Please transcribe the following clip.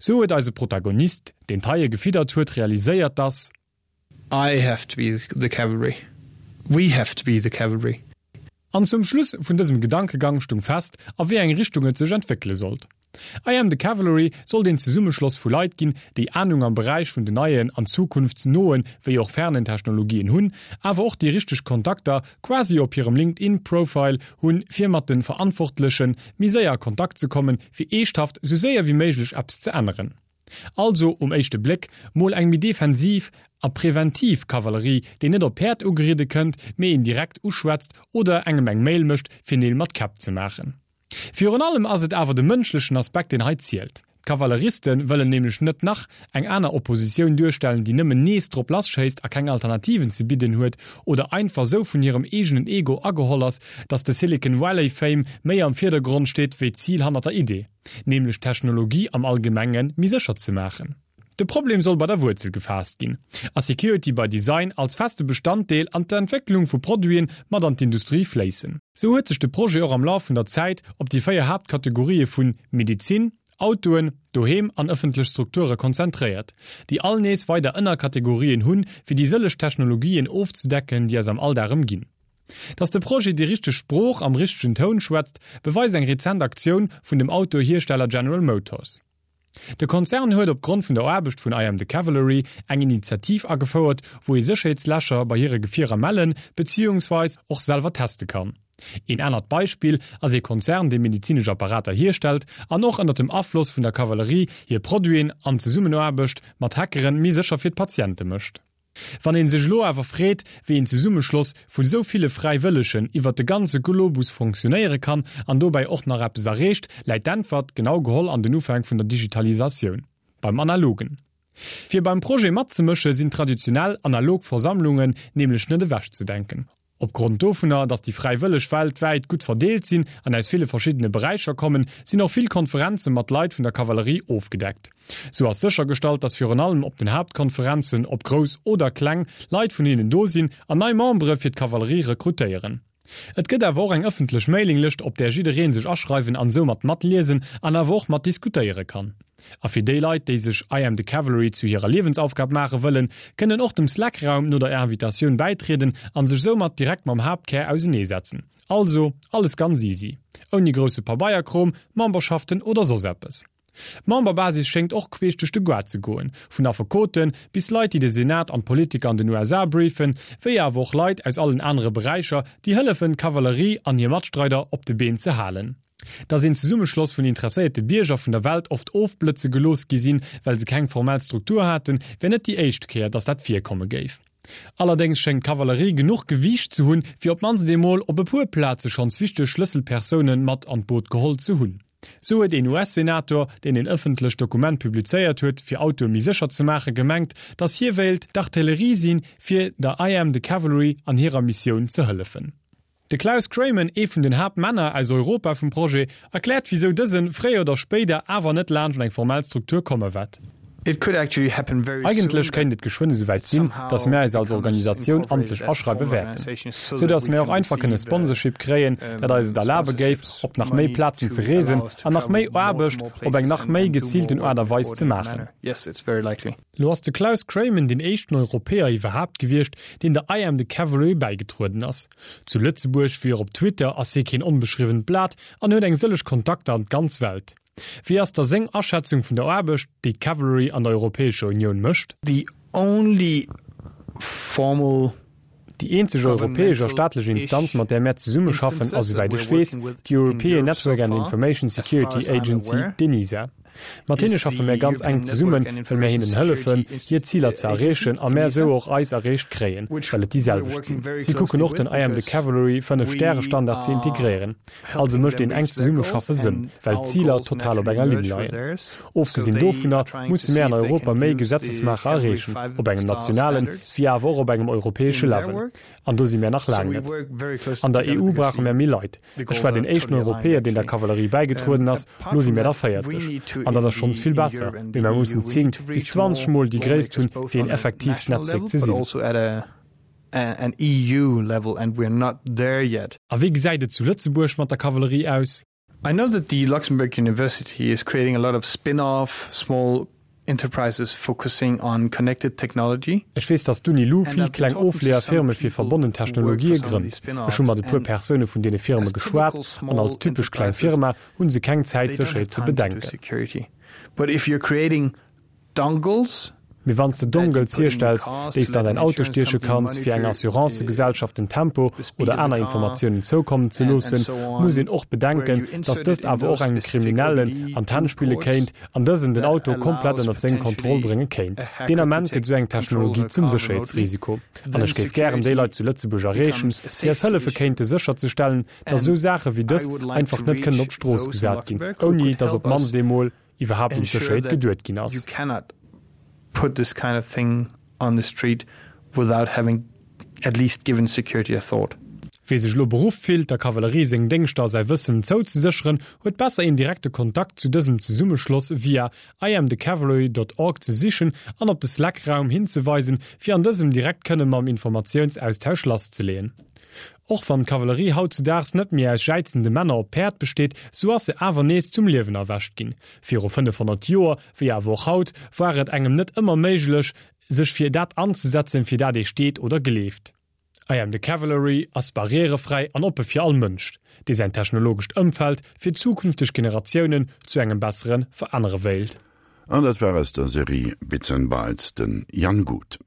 Sou huet eise Protagonist, deen d'Haie gefiddert huet, realiséiert, dass. I have to be the cavalry. We have to be the cavalry. An zum Schluss vun dësem Gedankegang stung fest, a wéi eng Richtung et sech entwéckele sollt. I Am The Cavalry sollt een Zesummeschloss vu Leit ginn, déi Anung am Beräich vun den neien an zukunftsnoen wéi och fernen Technologien hunn, awer och déi richteg Kontakter quasi op hirem LinkedIn Profile hunn, fir mat de Verantwortleche méi séier a Kontakt ze kommen, fir eeschthaft sou séier wéi méiglech eppes ze änneren. Also um éischte Bléck mol eng méi defensiv a preventiv Kavallerie, déi net op Päerd ugeridde kënnt, mee een direkt uschwätzt oder engem eng Mail mécht, fir Neel mat Käpp ze maachen. Virun allem ass et awer de mënschlechen Aspekt, deen hei zielt. D'Kavalleriste wëllen nämlech net nach eng aner Oppositioun duerstellen, déi nëmmen nees drop lasschéisst a keng Alternativen ze bidden huet oder einfach sou vun hirem eegenen Ego ageholl ass, datt de Silicon Valley Fame méi am Virdergrond steet wéi d'Zil hannert der Idee. nämlech d'Technologie am Allgemenge méi sécher ze maachen. De Problem soll bei der Wuerzel gefaasst ginn a Security by Design als feste Bestanddeel an d'Entwécklung vu Produiten mat an d'Industrie fléissen. Sou huet sech de Projet och am Laf vun der Zäit op déi 4 Haaptkategorië vun Medizin, Autoen, Doheem an ëffentlech Strukture konzentréiert, déi all nees weider Ënnerkategorien hunn, fir déi sëlleg Technologien ofzedecken, déi eis am Alldag ëmginn. Dass de Projet déi richteg Sprooch am richtegen Toun schwätzt, beweist eng rezent Aktioun vun dem Autohiersteller General Motors. De Konzern huet op Grond vun der Aarbecht vun I Am The Cavalry eng Initiativ agefouert, wou ee Sécherheetslächer bei hire Gefierer mellen, beziehungsweis och selwer teste kann. Een anert Beispill ass ee Konzern, dee medezinesch Apparater hierstellt an och ënnert dem Afloss vun der Kavallerie hir Produiten an Zesummenaarbecht mat Hackeren méi sécher fir d'Patiente mécht. Wann een sech elo awer freet, wéi een Zesummeschloss vun esou ville Fräiwëllegen iwwert de ganze Globus fonctionnéiere kann an dobäi och nach eppes erreecht, läit d'Äntwert, genau geholl an den Ufänk vun der Digitalisatioun, beim Analogen. Fir beim Projet matzemësche sinn traditionell analog Versammlungen nämlech net ewechzedenken. Opgrond dovunner, datt déi Fräiwëlleg weltwäit gutt verdeelt sinn an aus ville verschiddene Beräicher kommen, sinn och vill Konferenze mat Leit vun der Kavallerie ofgedeckt. Sou ass séchergestallt, datt virun allem op den Haaptkonferenzen, ob grouss oder kleng, Leit vun hinnen do sinn an nei Membere fir d'Kavallerie rekrutéieren. Et gëtt awer och eng ëffentlech Mailinglëscht, op där jidderee sech aschreiwen an soumat matliesen an awer och mat diskutéiere kann. A fir déi Leit, déi sech I am the Cavalry zu hirer Liewensaufgab maache wëllen, kënnen och dem Slack-Raum no der Invitatioun bäitrieden an sech soumat direkt mam Haaptkär auseneesetzen. Also, alles ganz easy. Ouni grousse Pabeierkrom, Memberschaften oder soss eppes. D'Memberbasis schéngt och queesch duerch de Goart ze goen, vun Affekoten bis Leit, déi de Senat an d'Politiker an den USA briefen, wéi awer och Leit aus allen anere Beräicher, déi hëllefen, d'Kavallerie an hir Matstreider op de Been ze halen. Dass een Zesummeschloss vun interesséierte Bierger vun der Welt oft ofblëtze gelooss gi sinn, well se keng formell Struktur haten, wär net déi éischt Kéier, dass dat virkomme géif. Allerdéngs schéngt d'Kavallerie genuch Gewiicht ze hunn, fir op d'mannst eemol op e puer Plaze schonns wichteg Schlësselpersoune mat an d'Boot geholl ze hunn. Sou huet een US-Senator, deen een ëffentlecht Dokument publizéiert huet, fir Autoe méi sécher ze maachen, gemengt, dass hie wéilt d'Artillerie sinn, fir der I Am The Cavalry an hirer Missioun ze hëllefen. De Klaus Kreymen, ee vun den Haaptmänner aus Europa vum Projet, erkläert wisou dësen, fréier oder spéider, awer net laanscht an eng formell Struktur komme wäert. Eigentlech kéint et geschwënn esouwäit sinn, datt mär eis als Organisatioun amtlech aschreiwe wäerten, sou datt mär och einfach kënne Sponsorship kréien, dat eis et erlabe géif, op nach méi Plazen ze reesen an nach méi Aarbecht op eng nach méi geziilten Aart a Weis ze maachen. Lo ass de Klaus Kreymen deen éischten Europäer iwwerhaapt gewiescht, deen der I Am The Cavalry bäigetrueden ass. Zu Lëtzebuerg wéi och op Twitter ass hie keen onbeschriwwent Blat an huet eng sëlleg Kontakter an d'ganz Welt. Wéi ass da seng Aschätzung vun der Aarbecht, déi d'Cavalry an der Europäescher Unioun mécht? The only formal Déi eenzeg europäesch a staatlech Instanz, mat där mär zesummeschaffen, ass, esouwäit ech weess, d'European Network and Information Security Agency, d'ENISA. Mat hinne schaffe mär ganz enk zesummen, well mär hinnen hëllefen, hir Ziler ze erreechen a mär esou och eis erreecht kréien, well et déi selwecht sinn. Si kucken och, den I am the Cavalry Fënnef-Stäre-Standard ze integréieren. Also mécht een enkt Zesummeschaffe Sënn, well d'Ziler total op enger Linn leien. Ofgesinn dovunner musse mär an Europa méi Gesetzesmaacher erreechen, op engem nationalen, wéi awer och op engem europäesche Level. An do si mär nach laang net. An der EU brauche mär méi Leit. Ech war deen éischten Europäer, deen der Kavallerie bäigetrueden ass, lo si mär der 40. An dat ass schonns vill besser, mee mär mussen 10 bis 20 mol déi Gréisst hunn, fir een effektiivt Netzwierk ze sinn. A wéi gesäit et zu Lëtzebuerg mat der Kavallerie aus? I know that the Luxembourg University is creating a lot of spin-off small enterprises focusing on connected technology. Ech weess, dass d'Uni-Lu vill kleng Ofleeër-Firme fir verbonnen Technologië grënnt. Ech hu mat e puer Persoune vun deene Firme geschwat, an als typesch kleng Firma hu se keng Zäit, Sécherheet ze bedenken. Mee wann s de Dongles hierstells, déi s de an däin Auto stieche kanns, fir enger Assurancegesellschaft den Tempo oder aner Informatiounen zoukommen ze loossen, muss een och bedenken, dass dëst awer och engem Kriminellen an d'Hänn spille kéint an dësen den Auto komplett ënnert seng Kontroll brénge kéint. Deen Ament gëtt esou eng Technologie zum Sécherheetsrisiko. An ech géif gären déi Leit zu Lëtzebuerg erreechen, déi eis hëllefe kéinte sécherzestellen, dass esou Saache wéi dës einfach net kënnen op d'Strooss gesat ginn, ouni dass op d'mannst eemol iwwerhaapt un d'Sécherheet geduet ginn ass. Wie sech elo beruff fillt, der Kavallerie seng Déngschter a säi Wëssen zouzesécheren, huet besser een direkte Kontakt zu dësem Zesummeschloss via iamthecavalry dot org ze sichen an op de Slack-Raum hinzeweisen, fir an dësem direkt kënne mam Informatiounsaustausch lasszeleeën. Och wann d'Kavallerie hautzudaags net méi aus jäizende Männer op Päerd besteet, sou ass se awer nees zum Liewen erwächt ginn. Viru 500 Joer, wéi awer och haut, war et engem net ëmmer méiglech, sech fir dat anzesetzen, fir dat ee steet oder gleeft. I Am The Cavalry ass barrièrefräi an oppe fir all Mënsch, dee säin technologescht Ëmfeld fir zukünfteg Generatiounen zu engem bessere verännere wéilt. An dat war aus der Serie Bits and Bytes den Jan Guth.